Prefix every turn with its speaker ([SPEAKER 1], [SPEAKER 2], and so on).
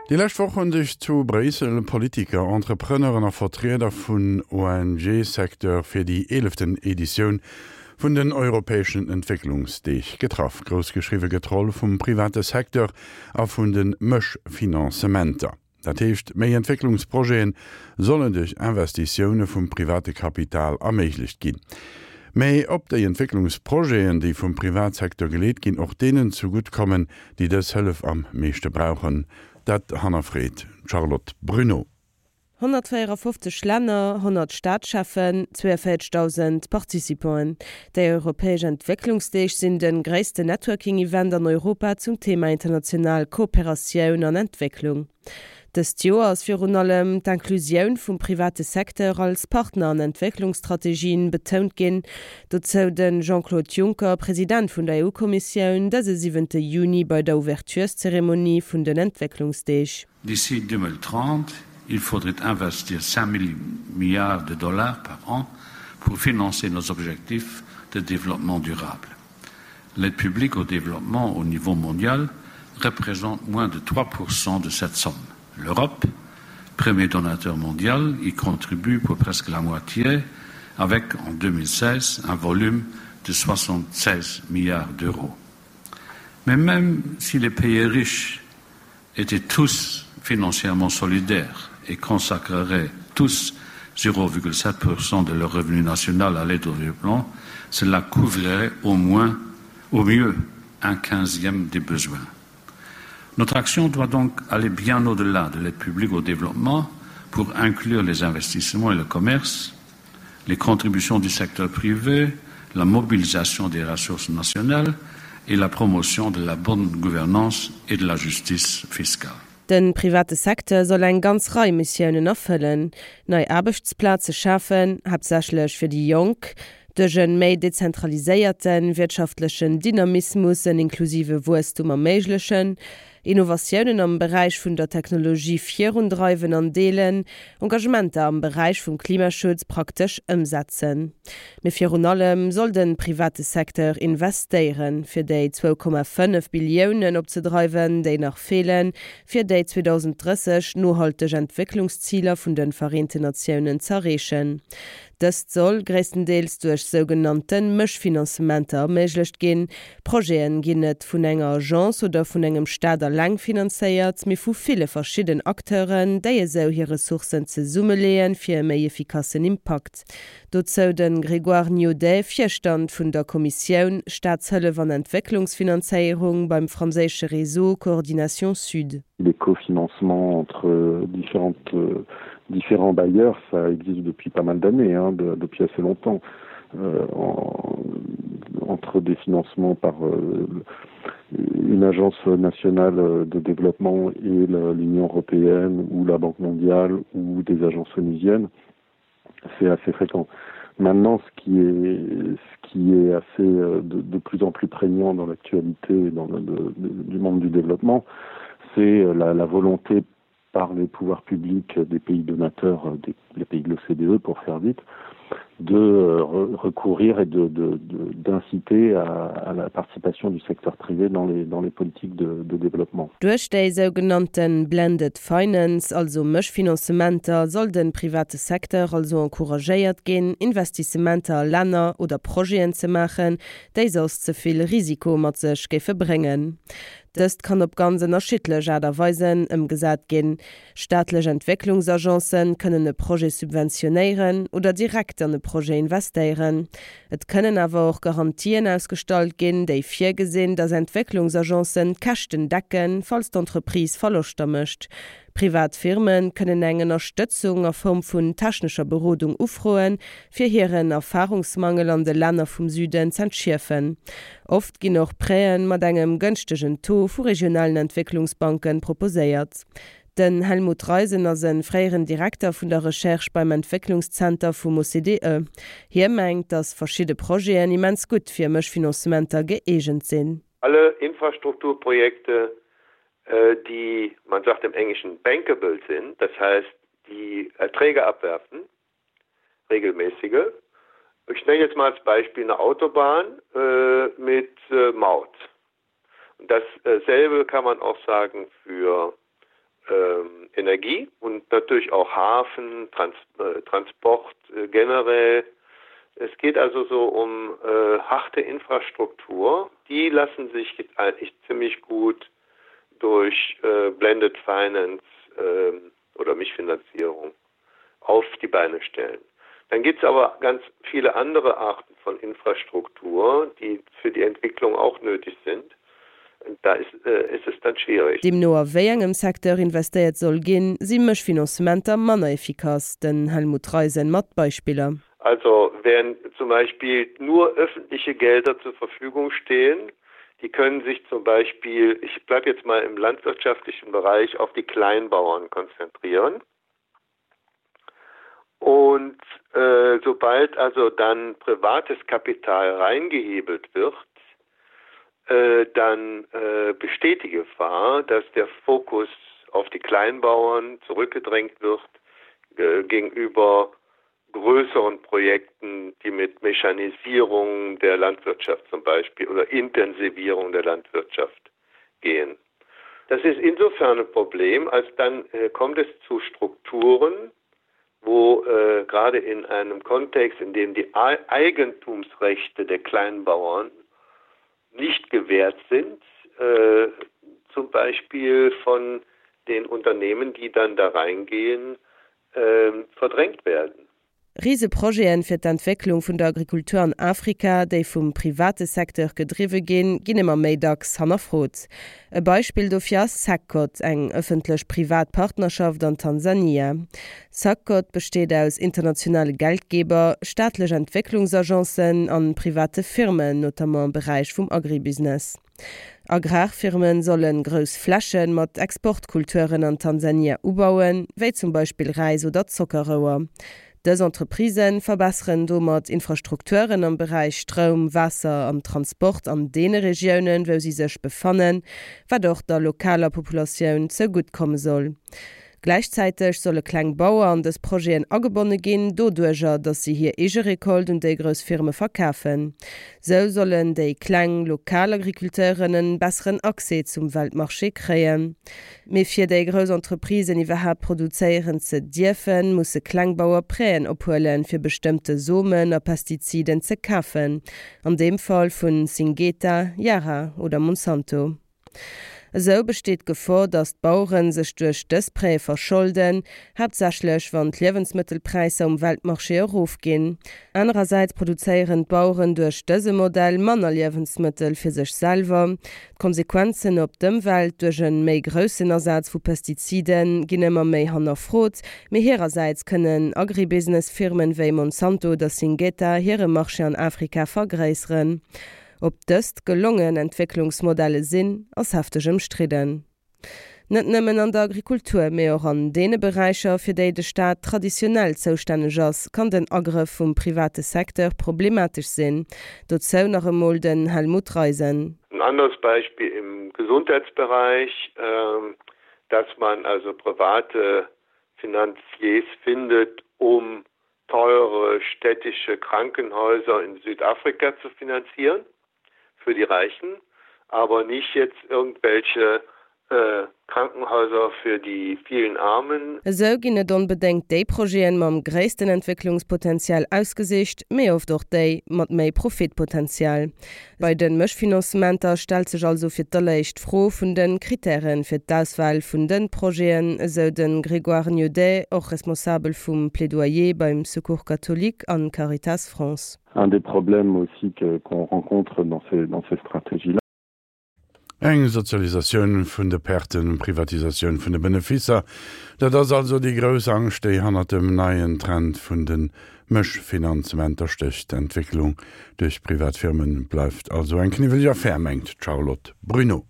[SPEAKER 1] Déi lescht Woch hunn sech zu Bréissel Politiker, Entrepreneuren a Vertrieder vun ONG-Secteur fir déi eeleften Editioun vun den europäeschen Entwécklungsdeeg getraff. Grouss geschriwwe gëtt d'Roll vum private Secteur a vun de Mëschfinanzementer. Dat heescht, méi Entwécklungsprojete sollen duerch Investitioune vum private Kapital erméiglecht ginn. Mä ob déi Entwécklungsprojeten, déi vum Privatsecteur geleet ginn, och deenen zegutt kommen, déi dës Hëllef am meeschte brauchen, dat hannerfreet d'Charlotte Bruneau.
[SPEAKER 2] 154 Länner, 100 Staatscheffen, 42.000 Participanten. Déi europäesch Entwécklungsdeeg sinn de gréissten Networking-Event an Europa zum Thema international Kooperatioun an Entwécklung. Dëst Joer ass virun allem d'Inclusioun vum private Secteur als Partner an Entwécklungsstrategien betount ginn. Dozou de Jean-Claude Juncker, President vun der EU-Kommissioun, dëse siwente Juni bei der Ouvertureszeremonie vun den Entwécklungsdeeg.
[SPEAKER 3] D'ici 2030, il faudrait investir 5 milliards de dollars par an pour financer nos objectifs de développement durable. L'aide publique au développement au niveau mondial représente moins de 3% de cette somme. L'Europe, premier donateur mondial, y contribue pour presque la moitié avec en 2016 un volume de 76 milliards d'euros. Mais même si les pays riches étaient tous financièrement solidaires et consacreraient tous 0,7% de leur revenu national à l'aide au développement, cela couvrirait au moins au mieux un quinzième des besoins. Notre action doit donc aller bien au-delà de l'aide publique au développement pour inclure les investissements et le commerce, les contributions du secteur privé, la mobilisation des ressources nationales et la promotion de la bonne gouvernance et de la justice fiscale.
[SPEAKER 2] De private Secteur soll eng ganz Rei Missiounen erfëllen, nei Aarbechtsplaze schafen, haaptsächlech fir déi Jonk, duerch e méi dezentraliséierte wirtschaftlechen Dynamismus en inklusive Wuesstum erméiglechen, Innovatiounen am Beräich vun der Technologie virundreiwen an deelen, Engagementer am Beräich vum Klimaschutz praktesch ëmsetzen. Mee virun allem soll de private Secteur investéieren, fir déi 2,5 Billiounen opzedreiwen, déi nach feelen, fir déi 2030 nohalteg Entwécklungsziler vun de Vereenten Natiounen z'erreechen. Dëst soll gréisstendeels duerch sougenannte Mëschfinanzementer erméiglecht ginn. Projete ginn net vun enger Agence oder vun engem Staat alleng finanzéiert, mee vu ville verschidden Acteuren, déi esou hir Ressourcen zesummeleeën, fir e méi efficassen Impakt. Dozou de Grégoire Niaudet, Virstand vun der Kommissioun Staatshëllef an Entwécklungsfinanzéierung beim franséische Réseau Coordination Sud.
[SPEAKER 4] Les cofinancements entre différentes, différents bailleurs, ça existe depuis pas mal d'années, hein, de, depuis assez longtemps. Euh, en, entre des financements par euh, une agence nationale de développement et l'Union européenne ou la Banque mondiale ou des agences onusiennes, c'est assez fréquent. Maintenant, ce qui est, ce qui est assez euh, de, de plus en plus prégnant dans l'actualité dans le, de, de, du monde du développement, c'est euh, la, la volonté par les pouvoirs publics des pays donateurs, euh, des, les pays de l'OCDE pour faire vite, de euh, recourir et d'inciter à, à la participation du secteur privé dans les, dans les politiques de, de développement.
[SPEAKER 2] Duerch déi sougenannte Blended Finance, also Mëschfinanzementer, soll de private Secteur also encouragéiert ginn, Investissementer a Länner oder Projeten ze maachen, déi soss ze vill Risiko mat sech géife bréngen. Dëst kann op ganz ënnerschiddlech Aart a Weisen ëmgesat ginn. Staatlech Entwécklungsagencen kënnen e Projet subventionéieren oder direkt an e Projet investéieren. Et kënnen awer och Garantien ausgestallt ginn, déi virgesinn, datt Entwécklungsagencen d'Käschten decken, falls d'Entreprise Verloschter mécht. Privat Firme kënnen eng Ënnerstëtzung a Form vun technescher Berodung ufroen, fir hiren Erfarungsmangel an de Länner vum Süden z'entschierfen. Oft ginn och Prêten mat engem gënschtegen Taux vu regionalen Entwécklungsbanken proposéiert. Den Helmut Reisen ass e fréieren Direkter vun der Recherche beim Entwécklungszenter vum OCDE. Hie mengt, datt verschidde Projeten immens gutt fir Mëschfinancementer gëeegent sinn.
[SPEAKER 5] Alle Infrastrukturprojekte, die, man sagt im Englischen, bankable sind, das heißt, die Erträge abwerfen, regelmäßige. Ich nenne jetzt mal als Beispiel eine Autobahn mit Maut. Und dasselbe kann man auch sagen für. ähm, Energie und natürlich auch Hafen, Trans äh, Transport äh, generell. Es geht also so um äh, harte Infrastruktur. Die lassen sich eigentlich ziemlich gut durch äh, Blended Finance äh, oder Mischfinanzierung auf die Beine stellen. Dann gibt es aber ganz viele andere Arten von Infrastruktur, die für die Entwicklung auch nötig sind. Da ist, äh, ist es dann schwierig.
[SPEAKER 2] Deemno a wéi engem Secteur investéiert soll ginn, si Mëschfinanzementer manner efficace. Den Helmut Reisen mat Beispiller.
[SPEAKER 5] Also wenn zum Beispiel nur öffentliche Gelder zur Verfügung stehen, die können sich zum Beispiel, ich bleibe jetzt mal im landwirtschaftlichen Bereich, auf die Kleinbauern konzentrieren. Und äh, sobald also dann privates Kapital reingehebelt wird, äh, dann äh, besteht die Gefahr, dass der Fokus auf die Kleinbauern zurückgedrängt wird äh, gegenüber größeren Projekten, die mit Mechanisierung der Landwirtschaft zum Beispiel oder Intensivierung der Landwirtschaft gehen. Das ist insofern ein Problem, als dann äh, kommt es zu Strukturen, wo äh, gerade in einem Kontext, in dem die Eigentumsrechte der Kleinbauern nicht gewährt sind, äh, zum Beispiel von den Unternehmen, die dann da reingehen, äh, verdrängt werden.
[SPEAKER 2] Riseprojeten fir d'Entwécklung vun der Agrikultur an Afrika, déi vum private Secteur gedriwwe ginn, ginn ëmmer méi dacks hannerfrot. E Beispill dofir ass SACCOT, eng ëffentlech-privat Partnerschaft an Tansania. SACCOT besteet aus internationale Geldgeber, staatlech Entwécklungsagencen an private Firmen, notamment am Beräich vum Agribusiness. Agrarfirmen solle grouss Fläche mat Exportkulturen an Tansania ubauen, wéi zum Beispill Räis oder Zockerrouer. Dës Entreprisë verbesseren domat Infrastrukturen am Beräich Stroum, Waasser an Transport an deene Regiounen, wou si sech befannen, wat och der lokaler Populatioun zougutt komme soll. Gläichzäiteg solle kleng Bauer an dës Projeten agebonne ginn, doduerjer, datt si hir eege Recolte un déi grouss Firme verkafen. Sou sollen déi kleng, lokal Agriculteuren en besseren Accès zum Weltmarché kréien. Mee fir déi grouss Entreprisen iwwerhaapt produzéieren ze dierfen, musse kleng Bauer Prêten ophuelen, fir bestëmmte Somen a Pestiziden ze kafen, an deem Fall vun Syngeta, Yara oder Monsanto. Esou besteet d'Gefor, datt d'Bauere sech duerch dës Prêtë verscholden, haaptsächlech wann d'Liewensmëttelpräisser um Weltmarché erofginn. Anerersäits produzéieren d'Baueren duerch dëse Modell manner Liewensmëttel fir sech selwer. D'Konsequenzen op d'Ëmwelt duerch e méi groussen Asaz vu Pestizide ginn ëmmer méi hannerfrot, mee hirersäits kënnen Agribusiness-Firmen wéi Monsanto oder Syngeta hire Marché an Afrika vergréisseren. Ob dëst gelongen Entwécklungsmodelle sinn, ass hefteg ëmstridden. Net nëmmen an der Agrikultur, mee och an deene Beräicher, fir déi de Staat traditionell zoustänneg ass, kann den Agrëff vum private Secteur problematesch sinn. Dozou nach emol den Helmut Reisen.
[SPEAKER 5] Ein anderes Beispiel im Gesundheitsbereich, dass man also private Finanziers findet, um teure städtische Krankenhäuser in Südafrika zu finanzieren für die Reichen, aber nicht jetzt irgendwelche äh, Krankenhäuser für die vielen Armen.
[SPEAKER 2] Esou ginn net onbedéngt déi Projeten mam gréissten Entwécklungspotenzial ausgesicht, mee oft och déi mat méi Profitpotenzial. Bei de Mëschfinanzementer stellt sech also fir d'alleréischt d'Fro vun de Krittäre fir d'Auswahl vun de Projeten, esou de Grégoire Niaudet, och Responsabel vum Plaidoyer beim Secours catholique an Caritas France.
[SPEAKER 4] Un des problèmes aussi que qu'on rencontre dans ces dans ces stratégies là.
[SPEAKER 1] Eng Sozialisatioun vun de Perten, Privatisatioun vun de Benefisser, dat ass also déi grouss Angscht, déi hannert dem neien Trend vun de Mëschfinanzementer stécht. D'Entwécklung duerch privat Firme bleift also eng kniwweleg Affär, mengt d'Charlotte Bruneau.